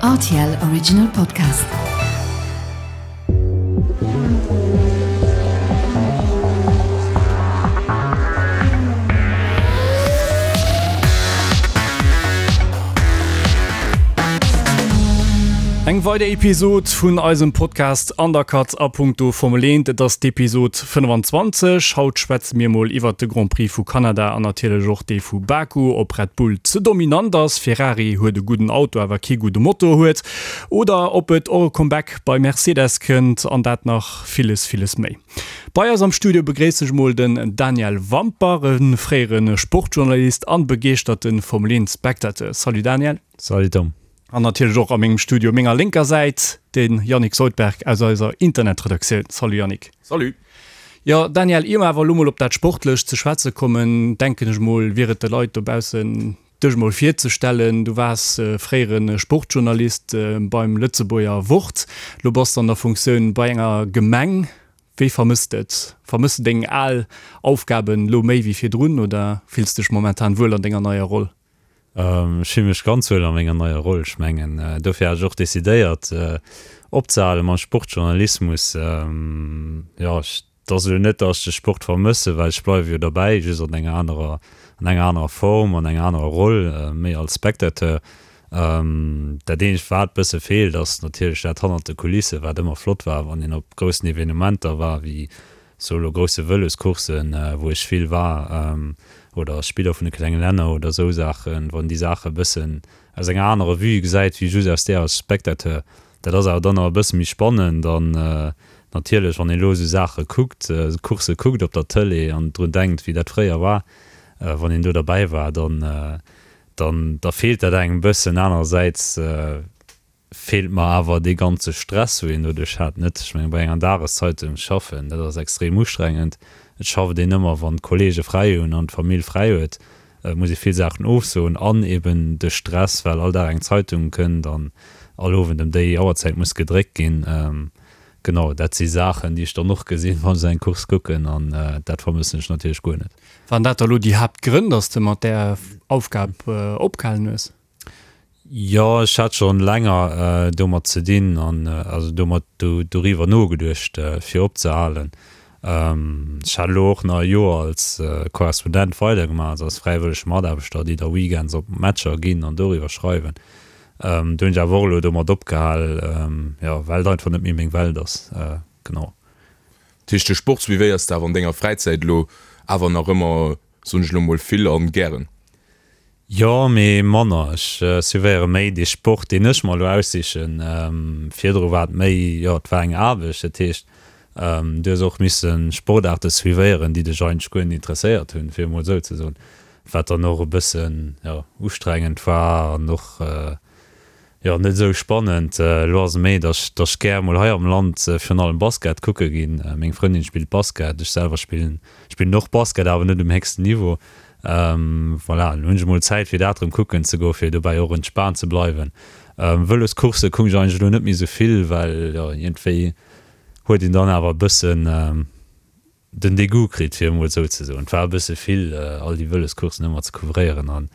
Rtl Original Podcast. Eng weider Episod vun eisem Podcast Undercut a punkto Formel 1. Et ass d'Episod 25. Haut schwätze mir mol iwwert de Grand Prix vu Kanada an natierlech och dee vu Baku, ob Red Bull ze dominant ass, Ferrari huet e gudden Auto awer kee gudde Motor huet oder ob et och e Comeback bei Mercedes kënnt an dat nach villes, villes méi. Bei eis am Studio begréissen ech mol den Daniel Wampach, e fréiere Sportjournalist an begeeschterte Formel 1 Spectateur. Salut Daniel. Salut Tom. An natierlech och a mengem Studio menger lénker Säit de Yannick Soldberg aus eiser Internetredaktioun. Salut Yannick. Salut. Jo Daniel, ier mer awer elo mol op dat Sportlecht ze schwätze kommen, denken ech mol, wier et de Leit dobaussen dech mol virzestellen. Du waars fréiere Sportjournalist beim Lëtzebuerger Wort, lo bass de an der Funktioun bei enger Gemeng. Wéi vermëss de et? Vermëss de deng al Aufgaben lo méi wéi virdrun oder fills dech momentan wuel an denger neier Roll? Ech fille mech ganz wuel a menger neier Roll. Ech mengen, dofir hat ech och decidéiert opzehale mam Sportjournalismus. Jo, et ass elo net, datt ech de Sport vermëssen, well ech bleiwe jo derbäi, just an enger anerer, an enger anerer Form, an enger anerer Roll, méi als Spectateur. Dat eenzegt, wat bësse feelt, ass natierlech dat hannert de Kulissen, wat ëmmer flott war, wann een op groussen Evenementer war, wéi Sou elo grousse Vëloscoursen, wou ech vill war, oder Spiller vun de klenge Länner oder esou Saachen, wann déi Saache bëssen aus enger anerer Vue gesäit wéi just aus där als Spectateur. Dat ass awer dann nach e bësse méi spannend an natierlech, wann een elo esou Saache kuckt, Coursse kuckt op der Tëlee an drun denkt, wéi dat fréier war, wann een do derbäi war, dann, dann, da feelt dat engem e bëssen. Anerersäits feelt mer awer dee ganze Stress, wou een doduerch hat, net. Ech mengen, bei enger Dageszeitung schaffen, dat ass extrem ustrengend. Et schafft een ëmmer, wann d'Kollege fräi hunn an d'Famill fräi huet. Et muss ee vill Saachen ofsoen an eben de Stress, well all Dag eng Zeitung kënnt an all Owend ëm déi Auerzäit muss gedréckt ginn. Genau, dat si Saachen, déi ech dann och gesinn, wann ech esou eng Course kucken an dat vermëssen ech natierlech guer net. Waren dat da lo déi Haaptgrënn, dass de mat där Aufgab opgehalen hues? Jo, ech hat schon länger domat ze dinn an also domat doriwwer nogeduecht fir opzehalen. Ech hat elo och nach e Joer als Korrespondent weidergemaach, also als fräiwëllege Mataarbechter, déi da weekends op Matcher ginn an doriwwer schreiwen. Do hunn ech awer och elo domat opgehal, jo, well et einfach net méi meng Welt ass. Genau. Dat heescht, de Sport suivéiers de awer an denger Fräizäit elo awer nach ëmmer, soen ech elo mol, vill an gären? Jo, mee manner. Ech suivéiere méi dee Sport, deen ech mer elo aussichen. Virdru war et méi, jo, et war eng Aarbecht. Dat heescht, du hues och misse Sportaarte suivéieren, déi dech eigentlech guer net interesséiert hunn, fir emol esou ze soen. Wat dann och e bëssen, jo, ustrengend war an och, Jo, net esou spannend. Elo ass et méi, dass ech gär mol hei am Land virun allem Basket kucke ginn. Meng Frëndin spillt Basket, ech selwer spillen spillen och Basket, awer net um héchsten Niveau. Voilà, elo hunn ech mol Zäit fir dat erëm kucken ze goen, fir dobäi och entspaant ze bleiwen. Vëloscoursse kucken ech eigentlech elo net méi esou vill, well jo iergendwéi huet een dann awer e bëssen, den Degout kritt, fir emol esou ze soen. Et war e bësse vill, all déi Vëloscoursen ëmmer ze couvréieren an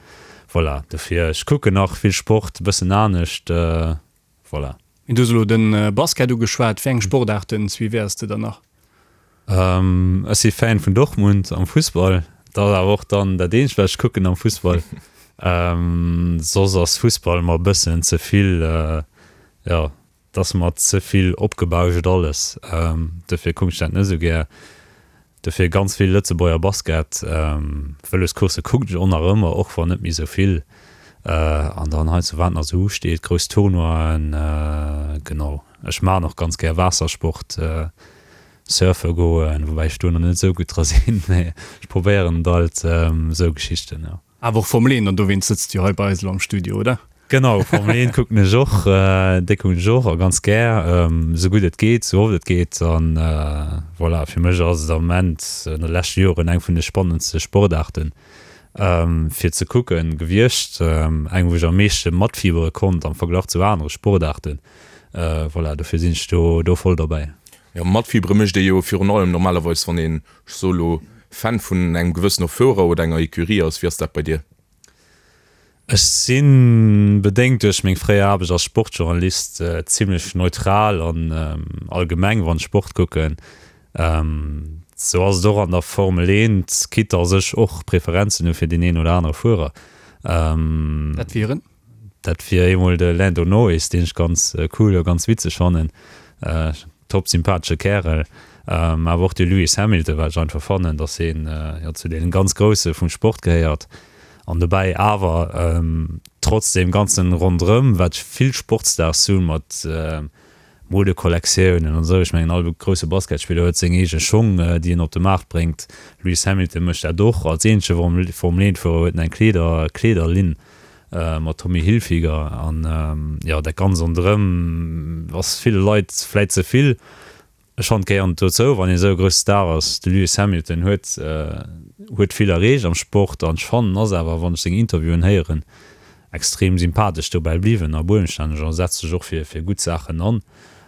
voilà. Dofir, ech kucken nach vill Sport, e bëssen anescht, voilà. Du hues elo de Basket ugeschwat. Wéi eng Sportaarten suivéiers de dann nach? Ech si Fan vun Dortmund am Fussball. Dat ass awer och dann dat eenzegt, wat ech kucken am Fussball. Soss ass Fussball mer e bëssen ze vill, jo, Et ass mer ze vill opgebauscht alles, dofir kucken ech dat net esou gär. Dofir ganz vill Lëtzebuerger Basket. Vëloscoursse kucken ech och nach ëmmer, och wann net méi esou vill. An dann heiansdo wat nach esou usteet, grouss Tournoien, genau. Ech maachen och ganz gär Waassersport, surfe goen, woubäi ech do nach net esou gutt dra sinn, mee ech probéieren et alt, esou Geschichten, jo. Awer och Formel 1, an dowéinst sëtzt du jo hei bei eis elo am Studio, oder? Genau, Formel 1 kucken ech och, déi kucken ech och a ganz gär, esou gutt et geet, esou oft et geet. An voilà, fir mech ass et am Moment an de leschte Joren eng vun de spannendste Sportaarten fir ze kucken gewiescht, eng wou ech am meeschte matfiebere konnt am Verglach zu anere Sportaarten. Voilà, dofir sinn ech do do voll derbäi. Jo, matfiebere mécht ee jo virun allem normalerweis wann een, ech soe lo, Fan vun engem gewëssene Fuerer oder enger Ecurie ass. Wéi ass dat bei dir? Ech sinn, bedéngt duerch meng fréier Aarbecht als Sportjournalist, zimlech neutral an allgemeng wann ech Sport kucken. Sou ass et och an der Formel 1, quitte dass ech och Preferenzen hu fir deen een oder anere Fuerer. Dat wieren? Dat wier eemol de Lando Norris, deen ech ganz cool a ganz witzeg fannen. Top sympathesche Kärel. Awer och de Lewis Hamilton, well ech einfach fannen, dass hien jo zu deenen ganz Grousse vum Sport gehéiert. An dobäi awer trotz deem ganzen Ronderëm, wat vill Sportstars hunn, mat Modekollektiounen an esou, ech mengen all grousse Basketspiller huet seng eege Schong, déi en op de Maart bréngt. Lewis Hamilton mécht dat och. Als eenzege Formel-Eent-Fuerer huet en eng Kleeder, Kleederlinn mat Tommy Hilfiger. An jo, dat Ganzt ronderëm ass ville Leit vläit ze vill. Ech fannen et gehéiert dozou, wann een esou e grousse Star ass. De Lewis Hamilton huet huet vill erreecht am Sport an ech fannen ass awer, wann ech seng Interviewen héieren, extrem sympathesch dobäi bliwwen a buenstänneg a setzt sech och fir fir gutt Saachen an.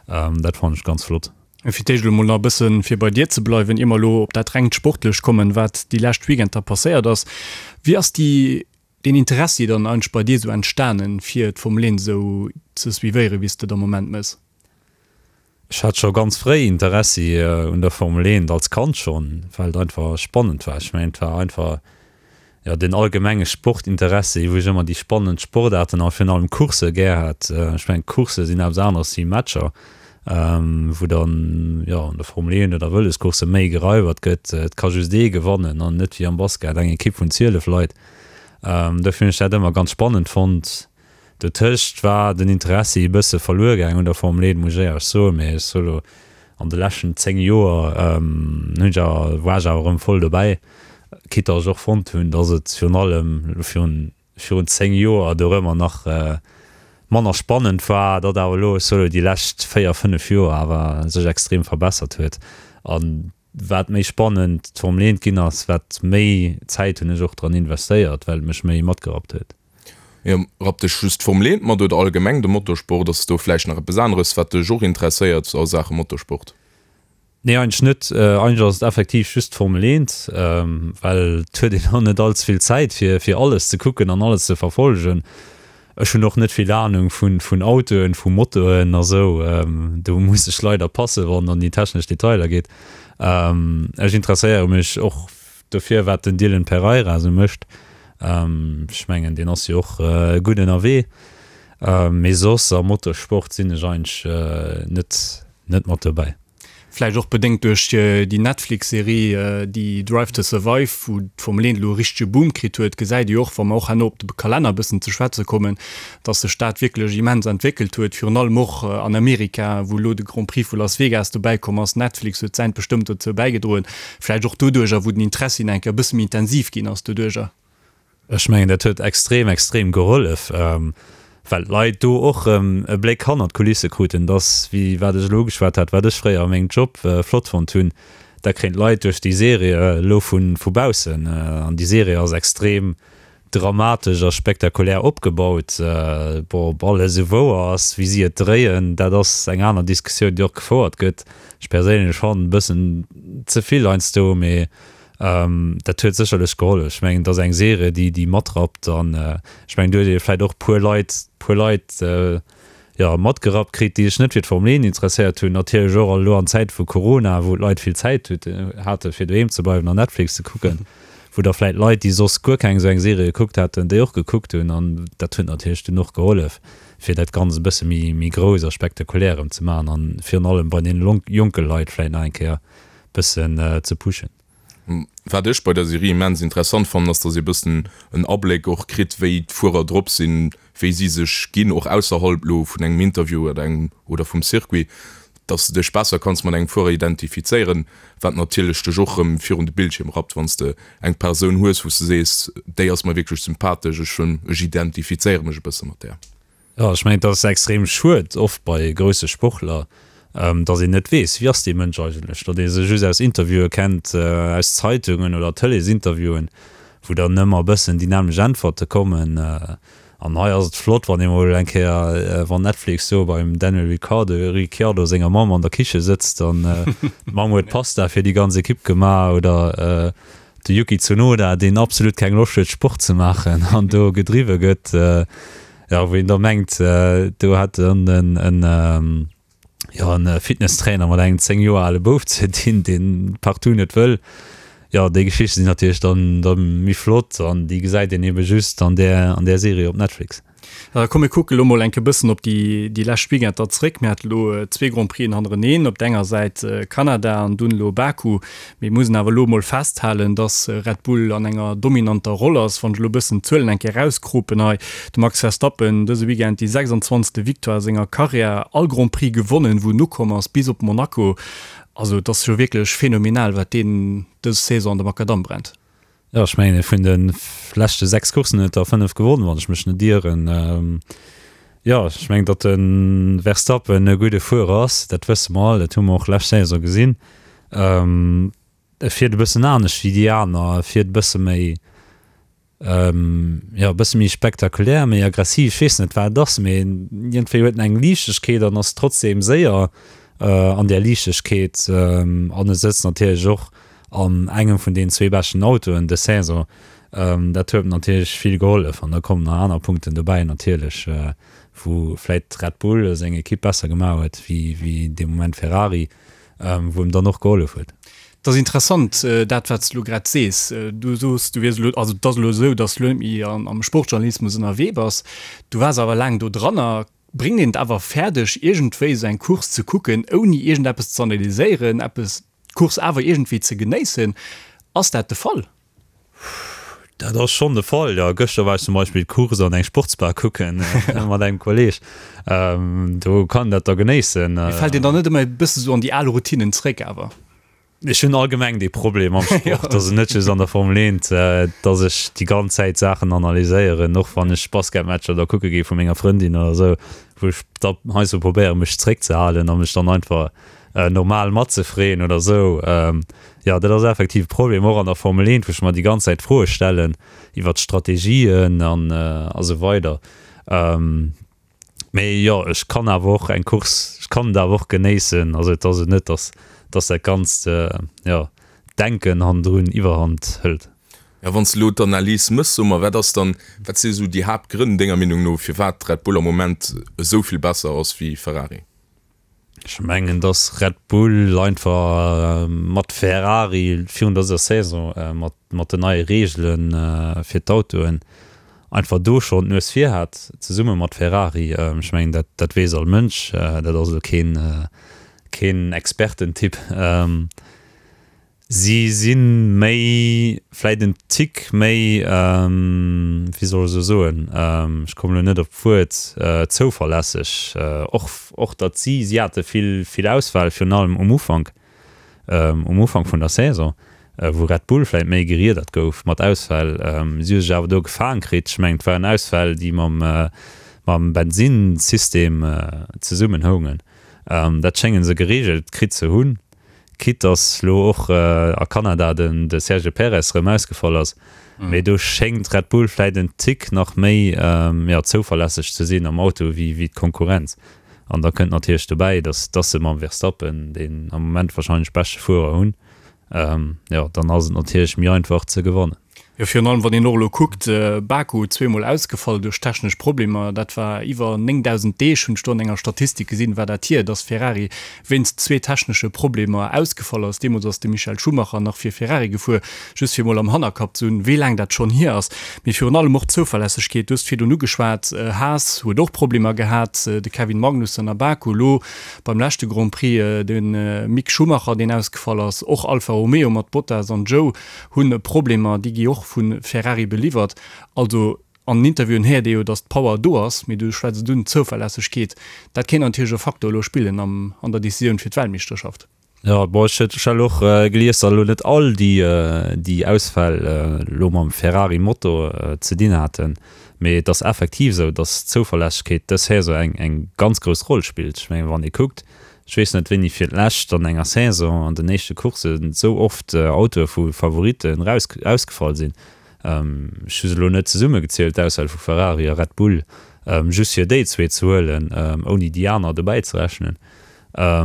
Dat fannen ech ganz flott. Fir d'éischt elo mol nach e bëssen, fir bei dir ze bleiwen, ier mer elo op dat rengt Sportlecht kommen, wat déi lescht Weekender passéiert ass. Wéi ass déi deen Interessi dann eigentlech bei dir esou entstanen, fir d'Formel 1 esou ze suivéieren, wéi s de et am Moment méchs? Ech hat scho ganz fréi Interessi un der Formel 1, als Kand schonn, well et einfach spannend war. Ech mengen, et war einfach, jo, den allgemenge Sportinteressi, wou ech ëmmer déi spannend Sportaarten a virun allem Coursse gär hat. Ech mengen, Coursse sinn eppes aneres wéi Matcher, wou dann, jo, an der Formel 1 oder Vëloscoursse méi gereiwert gëtt. Et ka just ee gewannen an net wéi am Basket eng Ekipp vun 12 Leit. Dofir hunn ech dat ëmmer ganz spannend fonnt. Dotëscht war den Interessi e bësse verluer gaang un der Formel 1, muss ech éierlech soen, mee ech soe lo, an de leschten 10 Joer hunn ech awer, war ech awer erëm voll dobäi, quitte dass ech och fonnt hunn, dass et virun allem elo virun, virun 10 Joer dorëmmer nach manner spannend war, datt awer elo, ech soe lo, déi lescht 4, 5 Joer awer sech extrem verbessert huet an wat méi spannend d'Formel 1 ginn ass, wat méi Zäit hunn ech och dran investéiert, well et mech méi matgerappt huet. Jo, rappt dech just d'Formel 1 mat oder allgemeng de Motorsport? Ass do vläicht nach eppes aneres, wat dech och interesséiert a Saache Motorsport? Nee, eigentlech net. Eigentlech ass et effektiv just d'Formel 1, well et huet een och net all ze vill Zäit, fir fir alles ze kucken an alles ze verfollegen. Ech hunn och net vill Anung vun vun Autoen, vu Motoen a sou. Do muss ech leider passen, wann et an déi technesch Detailer geet. Ech interesséiere mech och Dofir wat den Dylan Pereira esou mécht, ech mengen deen ass jo och gutt ënnerwee, mee soss am Motorsport sinn ech eigentlech net net mat dobäi. Vläicht och bedéngt duerch déi Netflix-Serie déi Drive to Survive, wou d'Formel 1 elo e richtege Boom kritt huet, gesäit ee jo och, wa mer och herno op de Kalenner e bëssen ze schwätze kommen, dass sech dat wierklech immens entwéckelt huet, virun allem och an Amerika, wou elo de Grand Prix vu Las Vegas dobäi komm ass. Netflix huet säint bestëmmt dozou bäigedroen. Vläicht och doduercher, wou den Interessi nach eng Kéier e bësse méi intensiv ginn ass doduercher. Ech mengen, dat huet extrem, extrem gehollef, well d'Leit do och erëm e Bléck hannert d'Kulisse kruten. Dass, wéi wat ech elo ugeschwat hat, wat ech fréier a mengem Job flott fonnt hunn, dat kréien d'Leit duerch déi Serie elo vu baussen. An déi Serie ass extrem dramatesch a spektakulär opgebaut. Bon, ob alles esou wouer ass, wéi si et dréien, dat ass eng aner Diskussioun, déi och gefouert gëtt. Ech perséinlech fannen e bëssen ze vill heiansdo, mee dat huet sécherlech gehollef. Ech mengen, et ass eng Serie, déi déi matrappt an ech mengen, do huet ee vläicht och puer Leit, puer Leit, jo, matgerappt kritt, déi sech net fir d'Formel 1 interesséiert hunn. Natierlech och elo an Zäite vu Corona, wou d'Leit vill Zäit hate fir doheem ze bleiwen an Netflix ze kucken, wou da vläit Leit, déi soss guer keng esou eng Serie gekuckt hätten, déi och gekuckt hunn. An dat huet natierlech dunn och gehollef, fir dat Ganzt e bësse méi, méi grouss a spektakulär erëm ze maachen an virun allem bei deene jonke Leit vläit nach eng Kéier bëssen ze pushen. Wat ech bei der Serie immens interessant fannen, ass, dass ee bëssen en Abléck och kritt, wéi d'Fuerer drop sinn, wéi si sech ginn, och ausserhalb lo vun engem Interview oder engem oder vum Circuit, dass de dech besser kanns mat engem Fuerer identifizéieren, wat natierlech dech och rëm virun de Bildschierm rappt, wann s de eng Persoun hues, wou s de sees, déi ass mer wierklech sympathesch, ech ech identifizéiere mech e bësse mat där. Jo, ech mengen, et ass extrem schued oft bei grousse Sportler, datt een net weess, wie ass dee Mënsch eigentlech, datt ee se just aus Interviewe kennt, aus Zeitungen oder Tëleesinterviewen, wou dann ëmmer e bëssen déi nämmlecht Äntwerte kommen. An hei ass et flott, wann ee mol eng Kéier, wann Netflix do beim Daniel Ricciardo, Ricciardo senger Mamm an der Kiche sëtzt an d'Mamm huet Pasta fir déi ganz Ekipp gemaach oder. De Yuki Tsunoda, deen absolut keng Loscht huet Sport ze maachen an do gedriwwe gëtt, jo wou een da mengt, do hätt en en jo en Fitnesstrainer mat engem 10 Joer ale Bouf ze dinn, deen partout net wëll. Jo déi Geschichte sinn natierlech dann da méi flott an déi gesäit een ebe just an där an där Serie op Netflix. Komm mir kucke lo mol enke bëssen op déi déi lescht Weekender zréck. Mir hate lo zwee Grand Prixen hannereneen, op der enger Säit Kanada an dunn elo Baku. Mir mussen awer elo mol festhalen, dass Red Bull an enger dominanter Roll ass. Wann ech elo bëssen d'Zuelen eng Kéier erauskropen hei, de Max Verstappen dëse Weekend déi 26. Victoire a senger Karriär, all Grand Prix gewonnen, wou en ukomm ass, bis op Monaco. Also et ass jo wierklech phänomenal, wat deen dës Saison an de Makadamm brennt. Jo, ech mengen, vun de leschte 6 Courssen huet er 5 gewonnen, wann ech mech net ieren. Jo, ech mengen, datt de Verstappen e gudde Fuerer ass, dat wësse mer all, dat hu mer och lescht Saison gesinn. E fiert e bëssen anescht wéi déi aner, e fiert e bësse méi, jo, e bësse méi spektakulär, méi aggressiv, ech weess net, wat et ass, mee iergendwéi huet en eng Liichtegkeet an ass trotzdeem séier an där Liichtegkeet an e sëtzt natierlech och an engem vun deenen zwee beschten Autoen dës Saison. Dat huet natierlech vill gehollef an da kommen nach aner Punkten dobäi natierlech, wou vläit Red Bull seng Ekipp besser gemaach huet wéi dee Moment Ferrari, wou em dann och gehollef huet. Et ass interessant dat wat s de elo grad sees. Du soos du wiers elo, also et ass elo esou, datt s de elo net méi am Sportjournalismus ënnerwee bass. Du waars awer laang do dranner. Bréngt een et awer fäerdeg iergendwéi esou eng Course ze kucken ouni iergendeppes ze analyséieren, eppes d'Course awer iergendwéi ze genéissen. Ass dat de Fall? Dat ass schonn de Fall, jo. Gëschter war ech zum Beispill d'Course an eng Sportsbar kucken mat engem Kolleeg. Do kann een dat da genéissen. Mee fält een dann net ëmmer e bësse sou an déi al Routinen zréck awer? Ech hunn allgemeng dee Problem am Sport, also net just an der Formel 1, dass ech déi ganz Zäit Saachen analyséieren, och wann ech Basketmatcher da kucke gi vu menger Frëndin oder esou, wou ech da heiansdo probéiere mech zréckzehalen a mech dann einfach normal matzefreeën oder esou. Jo, dat ass effektiv e Problem, och an der Formel 1, wou ech mer déi ganz Zäit Froe stellen iwwer d'Strategien an a sou weider. Mee jo, ech kann awer och eng Course, ech kann et awer och genéissen. Also et ass et net, datt datt dat ganzt, jo, Denken hannendrun Iwwerhand hëlt. Ja, wann s de elo d'Analys méchs, so mer, wat ass dann, wat si esou déi Haaptgrënn denger Meenung no, firwat Red Bull am Moment esou vill besser ass wéi Ferrari? Ech mengen, dass Red Bull einfach mat Ferrari virun dëser Saison mat den neie Reegele fir d'Autoen einfach do schonn d'Nues vir hat, zesumme mat Ferrari. Ech mengen, dat weess all Mënsch, dat ass elo keen Expertentipp. Si si méi, vläit en Tick méi, wéi soll ech elo soen, ech kommen elo net op d'Wuert, zouverlässeg. Och, och datt si, si hate vill, vill Ausfäll, virun allem um Ufank, um Ufank vun der Saison, wou Red Bull vläit méi geriedert gouf mat Ausfäll. Si hu sech awer do gefaang kritt. Ech mengen, et waren Ausfäll, déi mam, mam Bensinnsystem zesummenhoungen. Dat schénge se gereegelt kritt ze hunn. Quitte dass lo och a Kanada den de Sergio Perez rëm ausgefall ass, mee do schéngt Red Bull vläit en Tick nach méi jo zouverlässeg ze sinn am Auto wéi wéi d'Konkurrenz. An da kënnt natierlech dobäi, dass dass se mam Verstappen deen am Moment wahrscheinlech beschte Fuerer hunn, jo dann ass et natierlech méi einfach ze gewannen. Jo, virun allem wann een och elo kuckt, Baku zweemol ausgefall duerch technesch Problemer, dat war iwwer 9.000 Deeg, hunn ech do an enger Statistik gesinn, war dat hier, dass Ferrari wéinst zwee technesche Problemer ausgefall ass. Deemools ass de Michael Schumacher nach fir Ferrari gefuer, just fir emol am Hannerkapp ze hunn, wéi laang dat schonn hier ass. Mee virun allem och d'Zouverlässegkeet, du hues et virdrun ugeschwat, Haas huet och Problemer gehat, de Kevin Magnussen a Baku, elo beim leschte Grand Prix de Mick Schumacher, deen ausgefall ass, och Alfa Romeo mat Bottas an Zhou hunn Problemer, déi gi och vu Ferrari beliwwert. Also an den Interviewen héiert ee jo, datt d'Power do ass, mee du schwätz et un, d'Zouverlässegkeet, dat kéint natierlech e Faktor elo spillen am an der Decisioun fir d'Weltmeeschterschaft. Jo, bon, ech hat elo och gelies, datt elo net all déi déi Ausfäll elo mam Ferrari-Motor ze dinn haten, mee et ass effektiv esou, datt d'Zouverlässegkeet dës Saison eng eng ganz grouss Roll spillt. Ech mengen, wann ee kuckt, Ech weess net, wéini fir d'lescht an enger Saison an den éischte Courssen esou oft Autoe vu Favoritten raus ausgefall sinn. Ech hu se elo net zesummegezielt, d'Ausfäll vu Ferrari a Red Bull, just fir déi zwee ze huelen, ouni déi aner dobäi ze rechnen.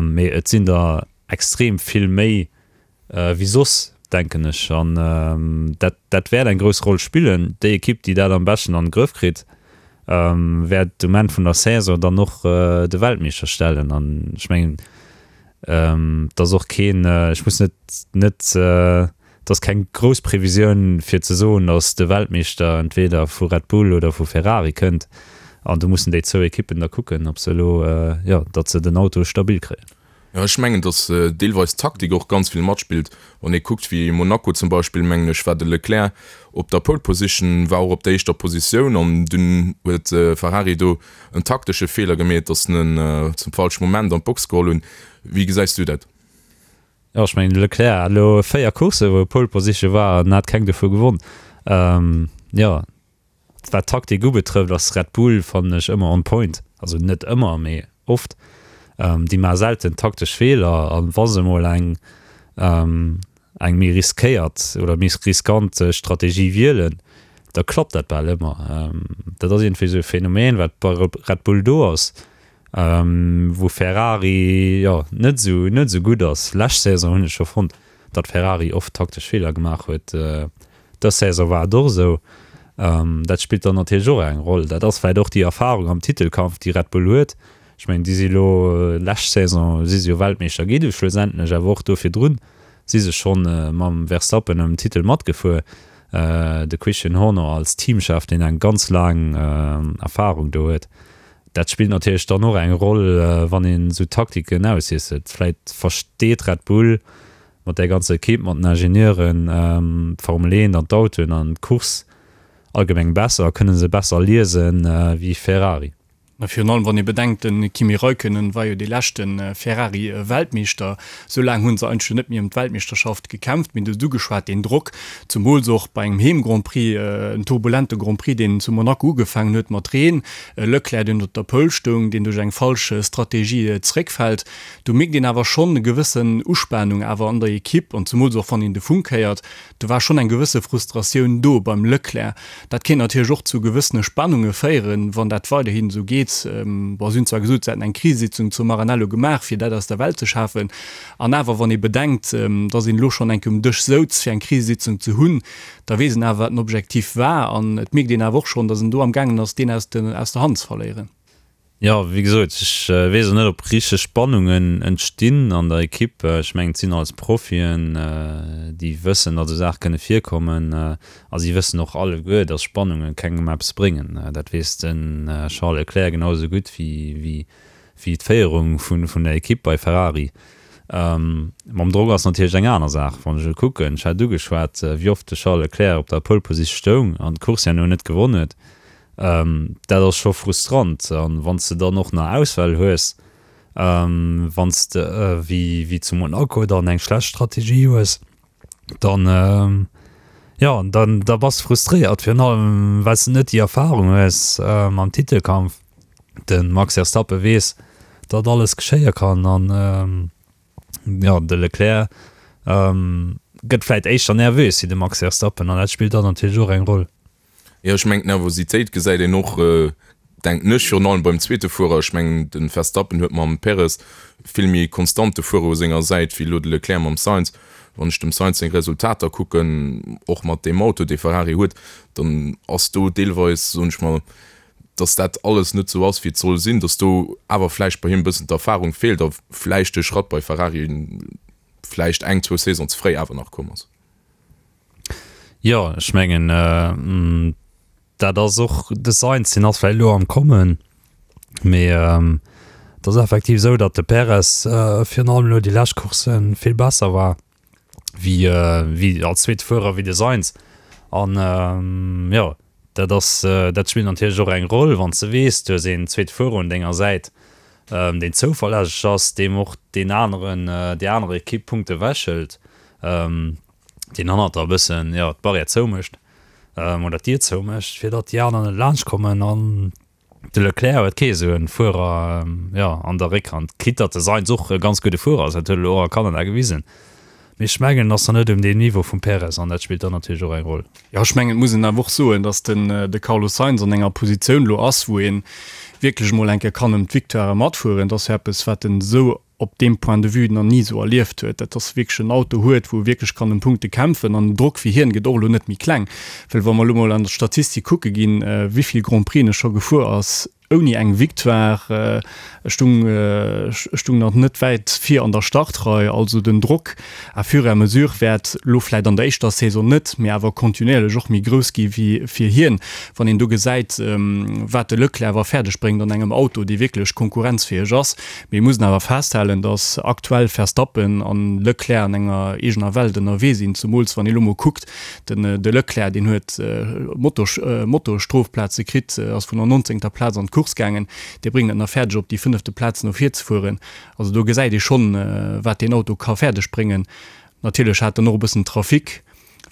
Mee et sinn der extrem vill méi wéi soss. denken ech. An dat, dat wäert eng grouss Roll spillen. Déi Ekipp, déi dat am beschten an de Grëff kritt, wäert um Enn vun der Saison dann och de Weltmeeschter stellen. An ech mengen, et ass och keen, ech muss net, net, et ass keng grouss Previsioun fir ze soen, datt de Weltmeeschter entweder vu Red Bull oder vu Ferrari kënnt. An do mussen déi zwou Ekippen da kucken, ob se elo, jo, datt se den Auto stabil kréien. Jo, ech mengen, datt deelweis d'Taktik och ganz vill matspillt. Wann ee kuckt, wéi Monaco zum Beispill, mengen ech, war de Leclerc op der Pole Position, war och op der éischter Positioun an dunn huet Ferrari do en taktesche Feeler gemeet, datt se en zum falsche Moment an d'Box geholl hunn. Wéi gesäis du dat? Jo, ech mengen, de Leclerc hat elo 4 Courssen, wou e Pole Position war an hat keng dovu gewonn. Jo, Wat d'Taktik ubetrëfft ass Red Bull, fannen ech, ëmmer on point. Also net ëmmer, mee oft. Déi maache selten taktesch Feeler a wa se mol eng eng méi riskéiert oder méi riskant Strategie wielen, da klappt dat bal ëmmer. Dat ass iergendwéi esou e Phänomen, wat bei Red Bull do ass, wou Ferrari, jo, net esou net esou gutt ass. Lescht Saison hunn ech scho fonnt, datt Ferrari oft taktesch Feeler gemaach huet. Dës Saison war et och esou. Dat spillt dann natierlech och eng Roll. Dat ass vläicht och déi Erfarung am Titelkampf, déi Red Bull huet. Ech mengen, déi si elo, lescht Saison si se jo Weltmeeschter gi du schlussendlech, awer och do virdrun si se schonn mam Verstappen ëm den Titel matgefuer. De Christian Horner als Teamchef, deen eng ganz laang Erfarung do huet, dat spillt natierlech dann och eng Roll, wann een esou Taktiken auswiesselt. Vläicht versteet Red Bull mat där ganzer Equipe, mat den Ingenieuren, d'Formel 1 an d'Autoen an d'Course allgemeng besser a kënne se besser liesen wéi Ferrari. A virun allem wann ee bedenkt, de Kimi Räikkönen war jo dee leschte Ferrari-Weltmeeschter. Esou laang hu se eigentlech jo net méi ëm d'Weltmeeschterschaft gekämpft. Mir hunn et ugeschwat, deen Drock, zumools och bei engem Heem-Grand Prix, en turbulente Grand Prix, deen zu Monaco ugefaangen huet mat Reen, e Leclerc, deen op der Pole stoung, deen duerch eng falsch Strategie zeréckfält. Do mierkt een awer schonn e gewëssen Uspanung awer an der Ekipp an zumools och wann een de Funk héiert, do war schonn eng gewësse Frustratioun do beim Leclerc. Dat kéint natierlech och zu gewëssene Spannunge féieren, wann dat weiderhin esou geet. Bon, si hunn zwar gesot, se hätten eng Krisesitzung zu Maranello gemaach, fir dat aus der Welt ze schafen. An awer, wann ee bedenkt, datt een elo schonn eng Kéier um Dësch souz, fir eng Krisesitzung ze hunn, da weess een awer, wat den Objektiv war. An et mierkt een awer och schonn, datt en do am gaangen ass, deen aus der Hand ze verléieren. Jo, wéi gesot, ech weess och net, ob richteg Spannungen entstinn an der Ekipp. Ech mengen, et sinn alles Profien, déi wëssen, datt esou Saache kënne virkommen. A si wëssen och alleguer, datt Spannunge kengem eppes bréngen. Dat weess de Charles Leclerc genau esou gutt wéi d'Féierung vun der Ekipp bei Ferrari. Mam Drock ass natierlech eng aner Saach. Wann ech elo kucken, ech hat ugeschwat, wéi oft de Charles Leclerc op der Pole Position stoung an d'Course herno net gewonn huet. Dat ass scho frustrant. An wann s de dann och nach Ausfäll hues, wann s de wéi zu Monaco dann eng schlecht Strategie hues, dann, jo, dann da bass de frustréiert, virun allem well s de net déi Erfarung hues am Titelkampf. De Max Verstappen weess, datt alles geschéie kann an, jo, de Leclerc gëtt vläit éischter nervös wéi de Max Verstappen an dat spillt dann natierlech och eng Roll. Jo, ech mengen d'Nervositéit gesäit een och, denken ech, virun allem beim zweete Fuerer. Ech mengen de Verstappen huet mam Perez vill méi konstante Fuerer u senger Säit wéi elo de Leclerc mam Sainz. Wann ech dem Sainz seng Resultater kucken, och mat deem Auto dee Ferrari huet, dann ass do deelweis, soen ech mol, datt dat alles net esou ass wéi et soll sinn, datt do awer vläicht bei him e bëssen d'Erfarung feelt a vläicht de Schratt bei Ferrari vläicht eng, zwou Saison ze fréi awer nach komm ass. Jo, ech mengen, dat ass och, de Sainz, deen ass vläicht elo am Kommen, mee et ass effektiv esou, datt de Perez virun allem elo déi lescht Coursse vill besser war wéi, wéi als zweete Fuerer wéi de Sainz. An jo, dat ass, dat spillt natierlech och eng Roll, wann s de weess, du hues een zweete Fuerer un denger Säit, deen zouverlässeg ass, deem och deen aneren, déi aner Ekipp Punkte ewechhëlt. Deen hannert der e bëssen, jo, d'Barrière zoumécht oder d'Dier zoumécht, fir datt déi aner net laanscht kommen. An de Leclerc huet kee esou e Fuerer, jo, an der Réckhand, quitte datt de Sainz och e ganz gudde Fuerer ass, dat huet e lo och a Kanada gewisen. Mee ech mengen, en ass nach net um deem Niveau vum Perez an dat spillt dann natierlech och eng Roll. Jo, ech mengen, et muss een awer och soen, datt den de Carlos Sainz an enger Positioun lo ass, wou ee wierklech emol eng Kéier kann ëm d'Victoire matfueren. Dat ass jo eppes, wat en esou. op deem Point de vue nach ni esou erlieft huet, dat ass wierklech en Auto huet, wou e wierklech kann ëm Punkte kämpfen an den Drock fir hien gëtt och elo net méi kleng, well wa mer elo mol an der Statistik kucke ginn, wéi vill Grand Prixen e scho gefuer ass ouni eng Victoire, e stung, e stung nach net wäit vir an der Startrei, also den Drock à fur et à mesure wäert elo vläit an der éischter Saison net, mee awer kontinuierlech och méi grouss gi wéi fir hien, wann een do gesäit, wat de Leclerc awer fäerdeg bréngt an engem Auto, dee wierklech konkurrenzfäeg ass. Mir mussen awer festhalen, datt aktuell Verstappen an Leclerc an enger eegener Welt ënnerwee sinn, zemools wann ee lo mol kuckt, den de Leclerc, deen huet Motor-Strofplaze kritt, ass vun der nonzéngter Plaz an d'Course gaangen, dee bréngt et nach fäerdeg op déi fënnefte Plaz no vir ze fueren. Also do gesäit ee schonn, wat deen Auto ka fäerdeg bréngen. Natierlech hat en och e bëssen Trafic,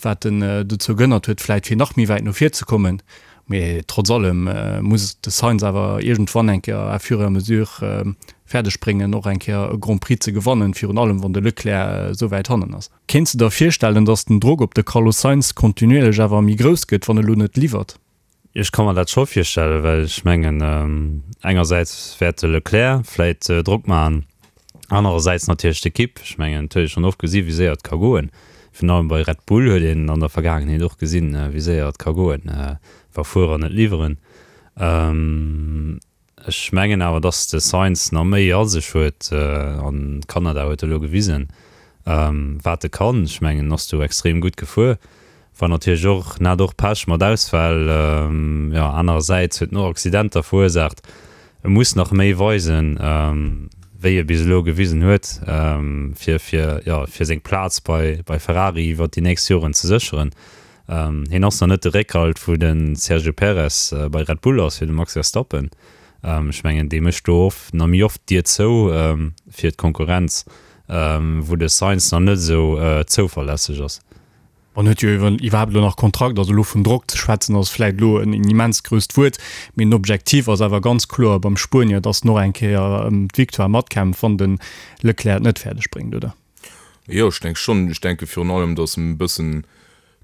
wat en dozou gehënnert huet, vläit fir nach méi wäit no vir ze kommen. Mee trotz allem muss de Sainz awer iergendwann eng Kéier à fur et à mesure fäerdeg bréngen, och eng Kéier e Grand Prix ze gewannen, virun allem wann de Leclerc esou wäit hannen ass. Kéints de der virstellen, datt den Drock op de Carlos Sainz kontinuierlech awer méi grouss gëtt, wann e lo net liwwert? Ech ka mer dat scho virstellen, well ech mengen, engersäits wäert de Leclerc vläit Drock maachen, anerersäits natierlech d'Ekipp. Ech mengen, et huet ee schonn oft gesi wéi séier et ka goen. Virun allem bei Red Bull huet een an der Vergaangenheet och gesinn, wéi séier et ka goen, wa Fuerer net liwweren. Ech mengen awer, dass de Sainz nach méi a sech huet an Kanada huet elo gewisen, wat e kann. Ech mengen, en ass do extrem gutt gefuer. War natierlech och, en hat och Pech mat Ausfäll, jo, anerersäits huet en och Accidenter verursaacht. E muss nach méi weisen, wéi e bis elo gewisen huet, fir, fir, jo, fir seng Plaz bei, bei Ferrari iwwert déi nächst Joren ze sécheren. Hien ass nach net de Réckhalt wou de Sergio Perez bei Red Bull ass fir de Max Verstappen. Ech mengen dee mécht do oft nach méi oft d'Dier zou fir d'Konkurrenz, wou de Sainz nach net esou zouverlässeg ass. En huet jo iwwerhaapt elo nach Kontrakt, also elo vun Drock ze schwätzen ass vläit elo en immens grousst Wuert, mee den Objektiv ass awer ganz kloer beim Spuenier, datt en och eng Kéier ëm d'Victoire matkämpft, wann de Leclerc et net fäerdeg bréngt, oder? Jo, ech denke schonn. Ech denke virun allem, datt en e bëssen,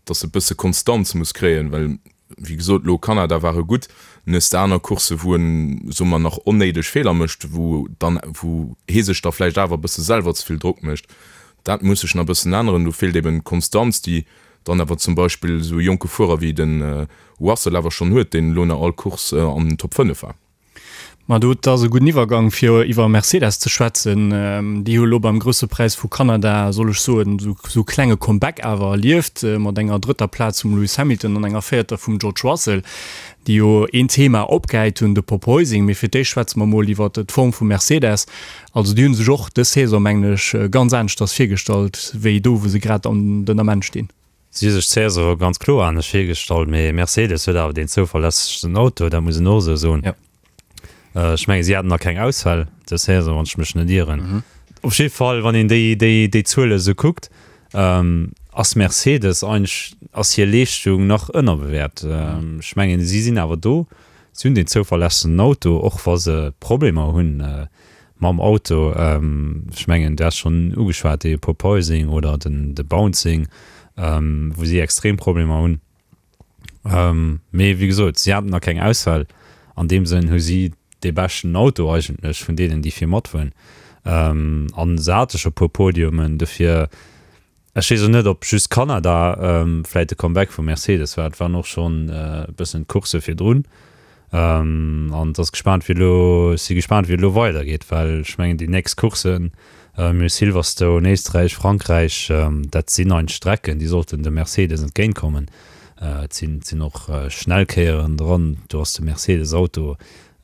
datt e bësse Konstanz muss kréien, well wéi gesot, elo Kanada war e gutt, en hues de aner Coursse wou en, soe mer, nach onnéideg Feeler mécht, wou dann, wou hee sech da vläicht awer e bësse selwer ze vill Drock mécht. Dat muss sech nach e bëssen änneren. Do feelt eben d'Konstanz, déi dann awer zum Beispill esou e jonke Fuerer wéi de Russell awer schonn huet, deen elo nach all Course an den Top 5 war. Ma do, dat ass e gudden Iwwergang fir iwwer Mercedes ze schwätzen. Déi hu elo beim Grousse Präis vu Kanada, soll ech soen, esou e klenge Comeback awer erlieft, mat enger drëtter Plaz vum Lewis Hamilton an enger véierter vum George Russell, déi jo een Thema opgehäit hunn, de Porpoising. Mee fir d'éischt schwätze mer mol iwwer d'Form vu Mercedes. Also déi hu sech och dës Saison, mengen ech, ganz aneschters virgestallt, wéi do wou se grad an den Ament stinn. Si hu sech d'Saison ganz kloer anescht virgestallt, mee Mercedes huet awer deen zouverlässegsten Auto, dat muss een och esou soen. Ech mengen, si haten nach keng Ausfäll dës Saison, wann ech mech net ieren. Op jidde Fall, wann een déi, déi, déi Zuele esou kuckt, ass Mercedes eigentlech, ass hir Leeschtung nach ënnerbewäert. Ech mengen, si sinn awer do, si hunn deen zouverlässegsten Auto, och wa se Problemer hunn. Mam Auto, ech mengen du has schonn ugeschwat, dee Porpoising oder den de Bouncing, wou si extrem Problemer hunn. Mee wéi gesot, si haten nach keng Ausfäll. An deem Sënn hu si dee beschten Auto eigentlech vun deenen, déi vir matfueren. An se hate scho puer Podiumen, dofir Ech weess och net, ob just Kanada vläit de Comeback vu Mercedes war. Et waren och schonn e bëssen d'Coursse virdrun. An et ass gespaant, wéi elo, ech si gespaant, wéi et elo weidergeet, well ech mengen, déi nächst Courssen, mir hu Silverstone, Éisträich, Frankräich, dat sinn eigentlech Strecken, déi sollten dem Mercedes entgéintkommen. Et sinn, et sinn och schnell Kéieren dran, do ass de Mercedes-Auto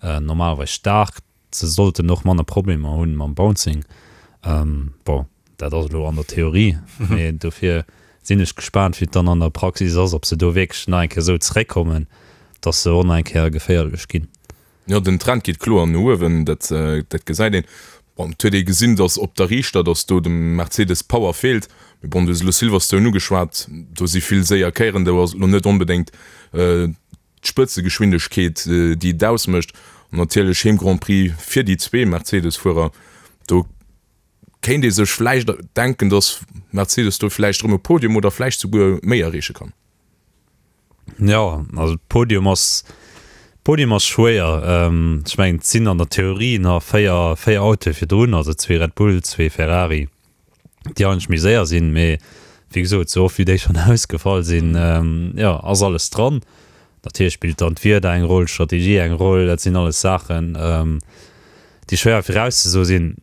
normalerweis staark. Se sollten och manner Problemer hunn mam Bouncing. Bon, dat ass elo an der Theorie, mee dofir sinn ech gespaant, wéi et dann an der Praxis ass, ob se do wierklech nach eng Kéier esou zeréckkommen, dass se och nach eng Kéier geféierlech ginn. Jo, den Trend geet kloer no uewen, dat dat gesäit een. Bon, et huet ee gesinn, dass op der Riichter, dass do dem Mercedes d'Power feelt. Mee bon, du hues elo Silverstone ugeschwat, do si vill séier Kéieren, do ass et elo net onbedéngt d'Spëtzegeschwindegkeet, déi et ausmécht. An natierlech Heem Grand Prix fir déi zwee Mercedes-Fuerer. Do kéint ee sech vläicht denken, datt Mercedes do vläicht erëm e Podium oder vläicht souguer méi erreeche kann. Jo, also Podium ass. Podium ass schwéier. Ech mengen, et sinn an der Theorie nach 4, 4 Autoe virdrun, also zwee Red Bull, zwee Ferrari, déi eigentlech méi séier sinn. Mee wéi gesot, esou oft wéi déi schonn ausgefall sinn, jo, ass alles dran. Natierlech spillt dann d'Wieder eng Roll, d'Strategie eng Roll. Dat sinn alles Saachen, déi schwéier virauszesoe sinn.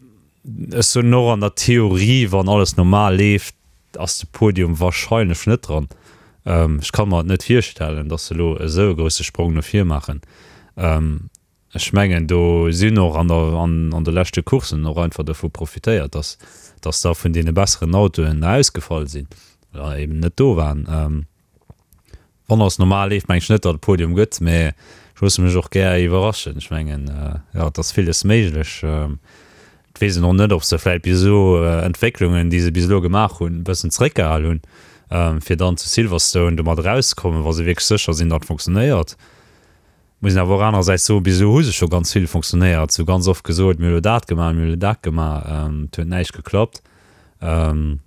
Ech soen och, an der Theorie, wann alles normal leeft, ass de Podium wahrscheinlech net dran. Ech ka mer et net virstellen, datt se elo esou e grousse Sprong no vir maachen. Ech mengen, do si hunn och an der, an de leschte Courssen och einfach dovu profitéiert, datt, datt da vun deene besseren Autoen ausgefall sinn oder eben net do waren. Wann alles normal leeft, mengen ech net, datt et Podium gëtt, mä ech loosse mech och gär iwwerraschen. Ech mengen, jo, et ass villes méiglech. Et weess een och net, ob se vläicht bis elo Entwécklungen, déi se bis elo gemaach hunn, e bëssen zeréckgehal hunn, fir dann zu Silverstone domat erauszekommen, wa se wierklech sécher sinn, datt et funktionéiert. Muss een awer och anerersäits soen, bis elo hu se scho ganz vill funktionéiert. Se hu ganz oft gesot, mir hu elo dat gemaach, mir hu elo dat gemaach, et huet näischt geklappt. An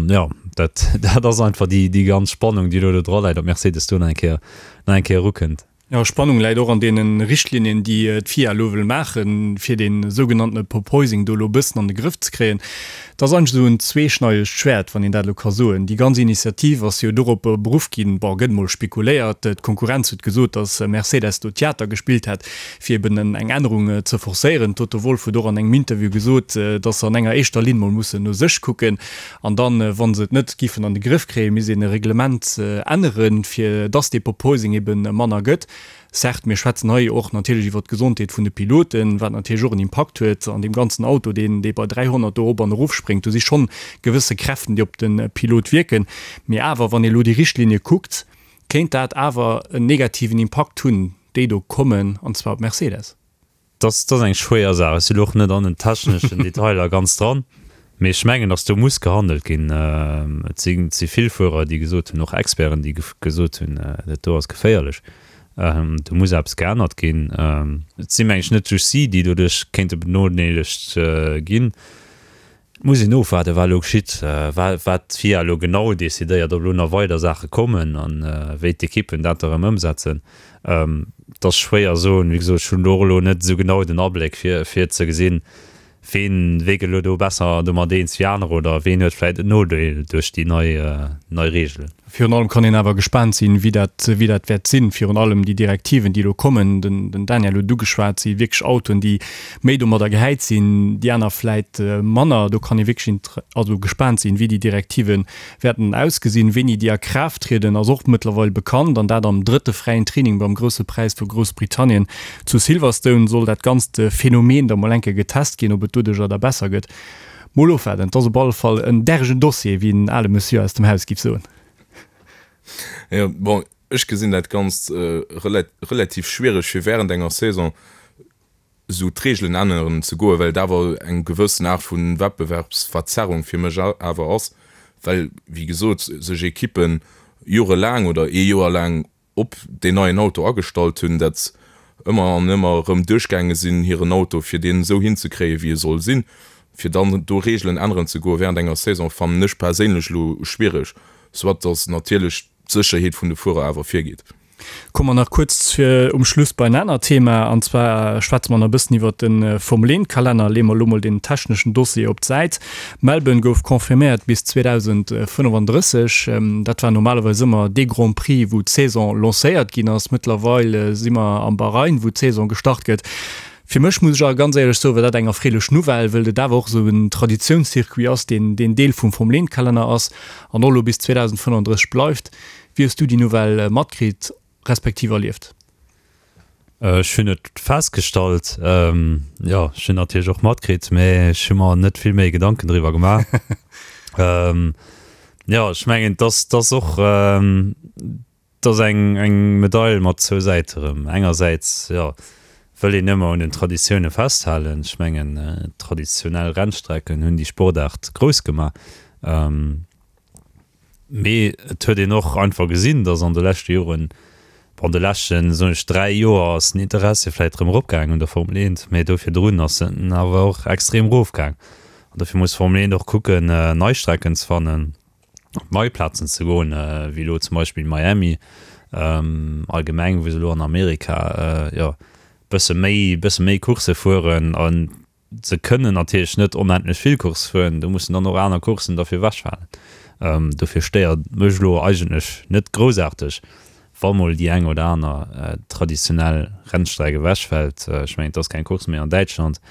jo, dat, dat ass einfach déi, déi ganz Spannung, déi elo do dra läit, ob Mercedes do nach eng Kéier, nach eng Kéier erukënnt. Jo, Spannung läit och an deene Richtlinien, déi d'FIA elo wëll maachen, fir dee sougenanntene Porpoising do elo e bëssen an de Grëff ze kréien. Dat ass eigentlech esou en zweeschneidegt Schwäert, wann een dat elo ka soen. Déi ganz Initiativ ass jo dorop beruff ginn, bon, gëtt emol spekuléiert, d'Konkurrenz huet gesot, datt Mercedes do Theater gespillt hätt, fir eben eng Ännerung ze forcéieren. D'Toto Wolff huet och an engem Interview gesot, datt se an enger éischter Linn mol mussen no sech kucken an dann, wa se et net giffen an de Grëff kréien, misst een e Reglement änneren, fir datt dee Porpoising eben manner gëtt. Certes, mir schwätzen hei och natierlech iwwert d'Gesondheet vun de Piloten, wat natierlech och en Impakt huet an deem ganzen Auto, deen dee bei 300 do erop an erofspréngt. Do si schonn gewësse Kräften, déi op de Pilot wierken. Mee awer, wann ee elo déi Richtlinie kuckt, kéint dat awer en negativen Impakt hunn. déi do kommen, an zwar op Mercedes. Dat ass eng schwéier Saach. Ech sinn elo och net an den techneschen Detailer ganz dran, mee ech mengen, datt do muss gehandelt ginn. Et si vill Fuerer, déi gesot hunn, och Experten, déi gesot hunn, dat do ass geféierlech, do muss eppes geännert ginn. Et si meng ech net just si, déi doduerch kéinte benodeelegt ginn. Et muss een ofwaarden, wat elo geschitt, wat d'FIA elo genau decidéiert, ob elo nach weider Saache kommen a wéi d'Ekippen dat da erëm ëmsetzen. Et ass schwéier soen. Wéi gesot, ech hunn do och elo net esou genau den Abléck, fir fir ze gesinn, ween wee gëtt elo do besser domat eens wéi anerer oder ween huet vläicht en Nodeel duerch déi nei nei Reegelen. Virun allem kann een awer gespaant sinn, wéi dat, wéi dat wäert sinn. Virun allem déi Direktiven, déi elo kommen, den, den Daniel huet et ugeschwat, si wierklech Autoen, déi méi domadder gehäit sinn, déi aner vläit manner. Do kann ee wierklech inter, also gespaant sinn, wéi déi Direktive wäerten ausgesinn. Wéini déi a Kraaft trieden, ass och mëttlerweil bekannt, an dat am drëtte fräien Training beim Grousse Präis vu Groussbritannien zu Silverstone soll dat ganzt Phänomen da mol eng Kéier getest ginn, ob et doduercher da besser gëtt. Mol ofwaarden, et ass op alle Fall en dergen Dossier, wéi en ale Monsieur aus dem Haus giff soen. Jo, bon, ech gesinn dat Ganzt relativ schwiereg, fir während enger Saison esou d'Reegelen änneren ze goen, well et awer eng gewëssen Aart vu Wettbewerbsverzerrung fir mech awer ass, well, wéi gesot, sech Ekippen jorelaang oder ee Joer laang op deen neien Auto agestallt hunn, dat ëmmer an ëmmer erëm duerchgaange sinn, hiren Auto, fir deen esou hinzekréien, wéi e soll sinn, fir dann do Reegelen änneren ze goe während enger Saison, fannen ech perséinlech elo schwiereg, soit datt natierlech d'Sécherheet vun de Fuerer awer virgeet. Komme mer nach kuerz um Schluss bei en anert Thema, an zwar schwätze mer nach e bëssen iwwert de Formel-Eent-Kalenner. Leeë mer elo mol deen techneschen Dossier op d'Säit. Melbourne gouf confirméiert bis 2035. Dat war normalerweis ëmmer dee Grand Prix, wou d'Saison lancéiert ginn ass. Mëttlerweil si mer am Bahrain, wou d'Saison gestart gëtt. Fir mech, muss ech awer ganz éierlech soen, war dat eng erfreelech Nouvelle, wëll et awer och esou en Traditiounscircuit ass, deen deen Deel vum Formel-Eent-Kalenner ass an och elo bis 2035 bleift. Wéi hues du déi Nouvelle matkritt respektiv erlieft? Ech hunn et festgestallt, jo, ech hunn natierlech och matkritt, mä ech hu mer net vill méi Gedanken driwwer gemaach. Jo, ech mengen, et ass, et ass och, et ass eng, eng Medail mat zwou Säite rëm. Engersäits, jo, wëll een ëmmer un den Traditioune festhalen. Ech mengen, traditionell Rennstrecken hunn déi Sportaart grouss gemaach. Mee et huet een och einfach gesinn, datt an de leschte Joren, bon, an de leschten, soen ech, 3 Joer ass den Interessi vläicht erëm eropgaangen un der Formel 1, mee do virdrun ass en awer och extrem erofgaang. An dofir muss d'Formel 1 och kucken, nei Strecken ze fannen, op nei Plazen ze goen, wéi elo zum Beispill Miami. Allgemeng, wou se elo an Amerika, jo, bësse méi, bësse méi Coursse fueren. A se kënnen natierlech net onendlech vill Coursse fueren, do mussen dann och aner Courssen derfir ewechfalen. Dofir stéiert et mech elo eigentlech net groussaarteg, wa mol déi eng oder aner traditionell Rennstreck ewechfält. Ech mengen, et ass keng Course méi an Däitschland,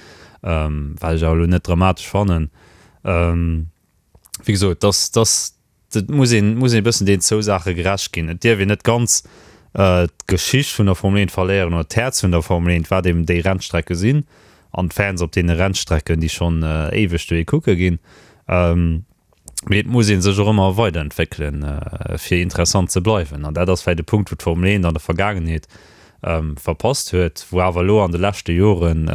wat ech awer elo net dramatesch fannen. Wéi gesot, dass, dass, et muss een, muss een e bëssen deenen zwou Saache gerecht ginn. Et dierf een net ganz d'Geschicht vun der Formel 1 verléieren oder d'Häerz vun der Formel 1, wat eben déi Rennstrecke sinn an d'Fans op deene Rennstrecken, déi schonn éiweg dohi kucke ginn. Mee et muss ee sech och ëmmer weiderentwéckelen, fir interessant ze bleiwen. An dat ass vläicht e Punkt, wou d'Formel 1 an der Vergaangenheet verpasst huet, wou awer elo an de leschte Joren,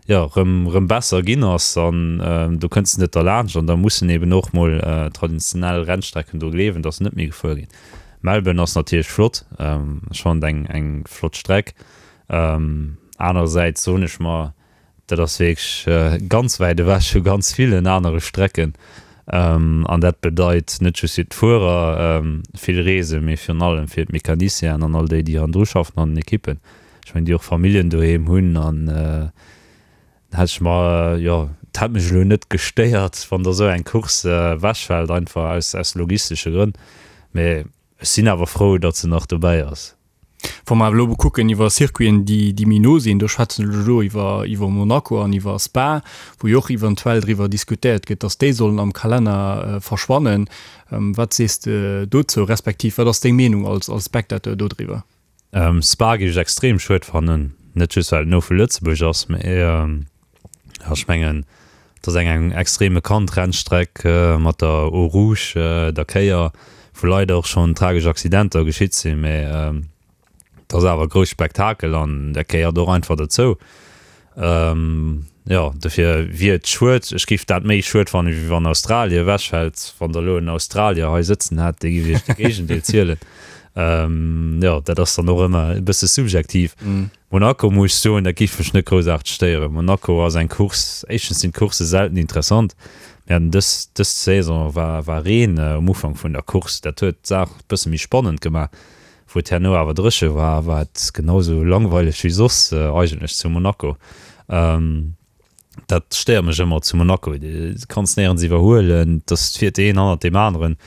jo, erëm, erëm besser ginn ass. An do kënns de net derlaanscht. An da mussen eben och mol traditionell Rennstrecken dru gleewen, dass se net méi gefuer ginn. Melbourne ass natierlech flott, ech fannen et eng, eng flott Streck. Anerersäits soen ech mer, Dat ass wierklech ganz wäit ewech vu ganz villen anere Strecken. An dat bedeit net just fir d'Fuerer vill Reesen, mee virun allem fir d'Mecanicienen an all déi, déi hannendru schaffen an den Ekippen. Ech mengen, déi och Familljen doheem hunn. An da hätt ech mer, jo, et hätt mech elo net gestéiert, wann da esou eng Course ewechfält, einfach aus logistesche Grënn. Mee ech sinn awer frou, datt se nach dobäi ass. Wa mer awer elo kucken iwwer Circuiten, déi, déi méi no sinn, do schwätzen ech elo iwwer, iwwer Monaco an iwwer Spa, wou jo och eventuell driwwer diskutéiert gëtt, dass déi sollen am Kalenner verschwannen. Wat sees de dozou, respektiv wat ass deng Meenung als, als Spectateur dodriwwer? Spa géif ech extrem schued fannen, net just well et no vu Lëtzebuerg ass, mä ech mengen, et ass eng eng extrem bekannt Rennstreck mat der Eau Rouge, der Kéier, wou leider och schonn tragesch Accidenter geschitt sinn, mä et ass awer e grousst Spektakel an dat gehéiert och einfach dozou. Jo, dofir wier et schued. Ech géif dat méi schued fannen, wéi wann Australien ewechfält. Wann Der elo en Australier hei sëtzen hätt, dee géif Iech de Géigendeel zielen. Jo, dat ass dann och ëmmer e bësse subjektiv. Monaco muss ech soen, dat géif mech net groussaarteg stéieren. Monaco ass eng Course, éischtens sinn d'Coursse selten interessant. Mir haten dës, dës Saison war, war Reen um Ufank vun der Course, dat huet d'Saach e bësse méi spannend gemaach. Wou et herno awer dréche war, war et genau sou langweileg wéi soss eigentlech zu Monaco. Dat stéiert mech ëmmer zu Monaco, du kanns néierens iwwerhuelen, et ass, et fiert een hannert deem aneren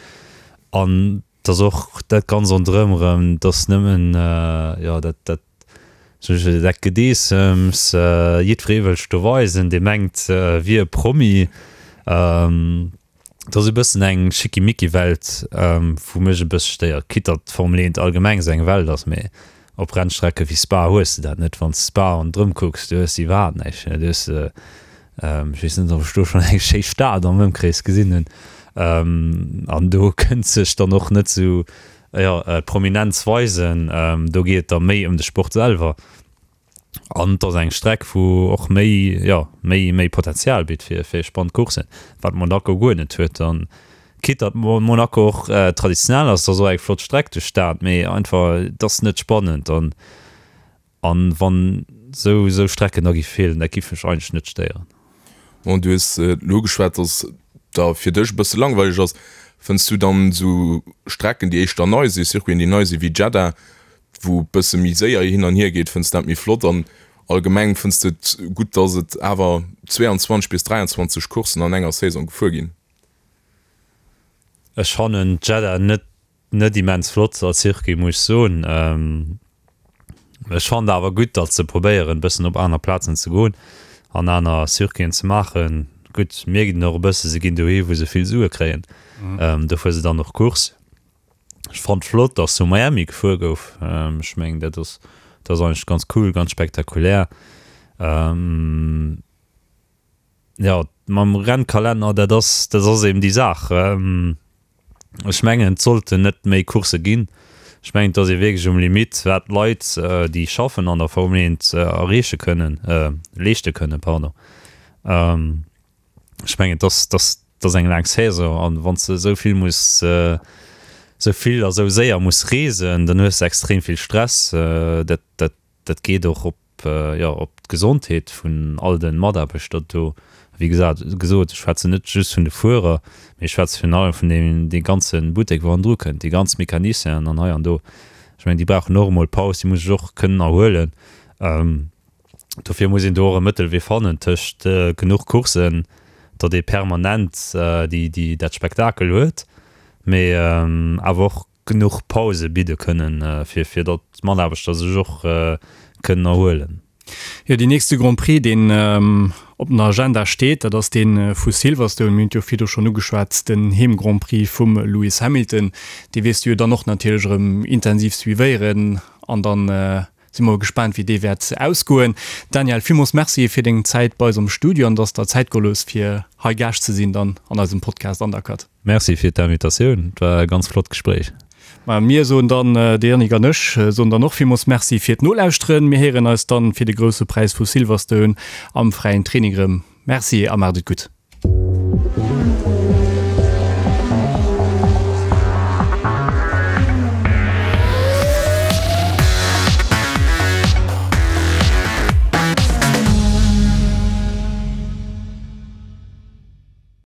an Et ass och dat ganz ronderëm erëm, et ass nëmmen, jo, dat, dat, dat Gedeessems, jiddweree wëll sech do weisen, dee mengt, wier e Promi. Et ass e bëssen eng Schickimicki-Welt, wou mech e bësse stéiert, quitte datt d'Formel 1 allgemeng esou eng Welt ass, mee op Rennstrecke wéi Spa hues de dat net. Wann s de Spa ronderëm kucks, du hues iwwerhaapt näischt, du hues Ech weess net, ob ech do schonn eng schéi Stad am Ëmkrees gesinn hunn. An do kënnt sech dann och net esou, jo, d'Prominenz weisen. Do geet et da méi ëm de Sport selwer. An et ass eng Streck, wou och méi, jo, méi, méi Potenzial bitt fir, fir spannend Courssen, wat Monaco guer net huet. An quitte datt Monaco och traditionell ass, et ass och eng flott Streck duerch d'Stad, mee einfach, et ass net spannend. An An wann sou sou Strecken da gi feelen, dat giff mech eigentlech net stéieren. Bon, du hues elo ugeschwat, dass et da fir dech e bësse langweileg ass. Fënns du dann esou Strecken, déi éischter nei sinn, Circuiten, déi nei sinn, wéi Jeddah, wou e bësse méi séier hin an hier geet, fënns du dat méi flott? An allgemeng, fënns du et gutt, dass et awer 22 bis 23 Courssen an enger Saison gefuer ginn? Ech fannen Jeddah net Net immens flott als Circuit muss ech soen. Ech fannen awer gutt datt se probéieren bëssen op aner Plazen ze goen an aner Circuiten ze maachen. Gutt mierkt een och e bësse se ginn dohi wou se vill Sue kréien, do fuere se dann och Course. Ech fannt flott datt zu Miami gefuer gouf, ech mengen dat ass dat ass eigentlech ganz cool, ganz spektakulär. Jo mam Rennkalenner dat ass dat ass eben déi Saach. Ech mengen, et sollten net méi Coursse ginn. Ech mengen, et ass ee wierklech um Limitt, wat d'Leit, déi schaffen an der Formel 1, erreeche kënnen, leeschte kënnen, pardon. Ech mengen, et ass, et ass, et ass eng laang Saison an wann s de esou vill muss, esou vill a esou séier muss reesen, dann hues de extrem vill Stress. Dat, dat, dat geet och op jo, op d'Gesondheet vun all de Mataarbechter do. Wéi gesat, gesot, ech schwätzen net just vun de Fuerer, mee ech schwätze virun allem vun deem, dee ganze Buttek, wou hannendru kënnt, déi ganz Mecanicienen an hei an do. Ech mengen, déi brauchen och emol Paus, déi musse sech och kënnen erhuelen. Dofir muss een do och e Mëttelwee fannen tëscht genuch Courssen, datt ee permanent déi, déi, dat Spektakel huet, mee awer och genuch Pause bidde kënnen, fir, fir datt d'Mataarbechter sech och kënnen erhuelen. Jo, deen nächste Grand Prix, deen op den Agenda steet, dat ass dee vu Silverstone. Mir hunn et jo virdu schonn ugeschwat, den Heem-Grand Prix vum Lewis Hamilton. Dee wäers du jo dann och natierlech erëm intensiv suivéieren an dann si mer gespaant, wéi dee wäert ausgoen. Daniel, villmools Merci fir deng Zäit bei eis am Studio an dass der Zäit geholl hues, fir hei Gaascht ze sinn dann an eisem Podcast Undercut. Merci fir d'Invitatioun, et war e ganz flott Gespréich. Ma mir soen dann, de Yannick an ech soen dann och villmools Merci fir d'Nolauschteren. Mir héieren eis dann fir de Grousse Präis vu Silverstone am fräien Training erëm. Merci a maacht et gutt.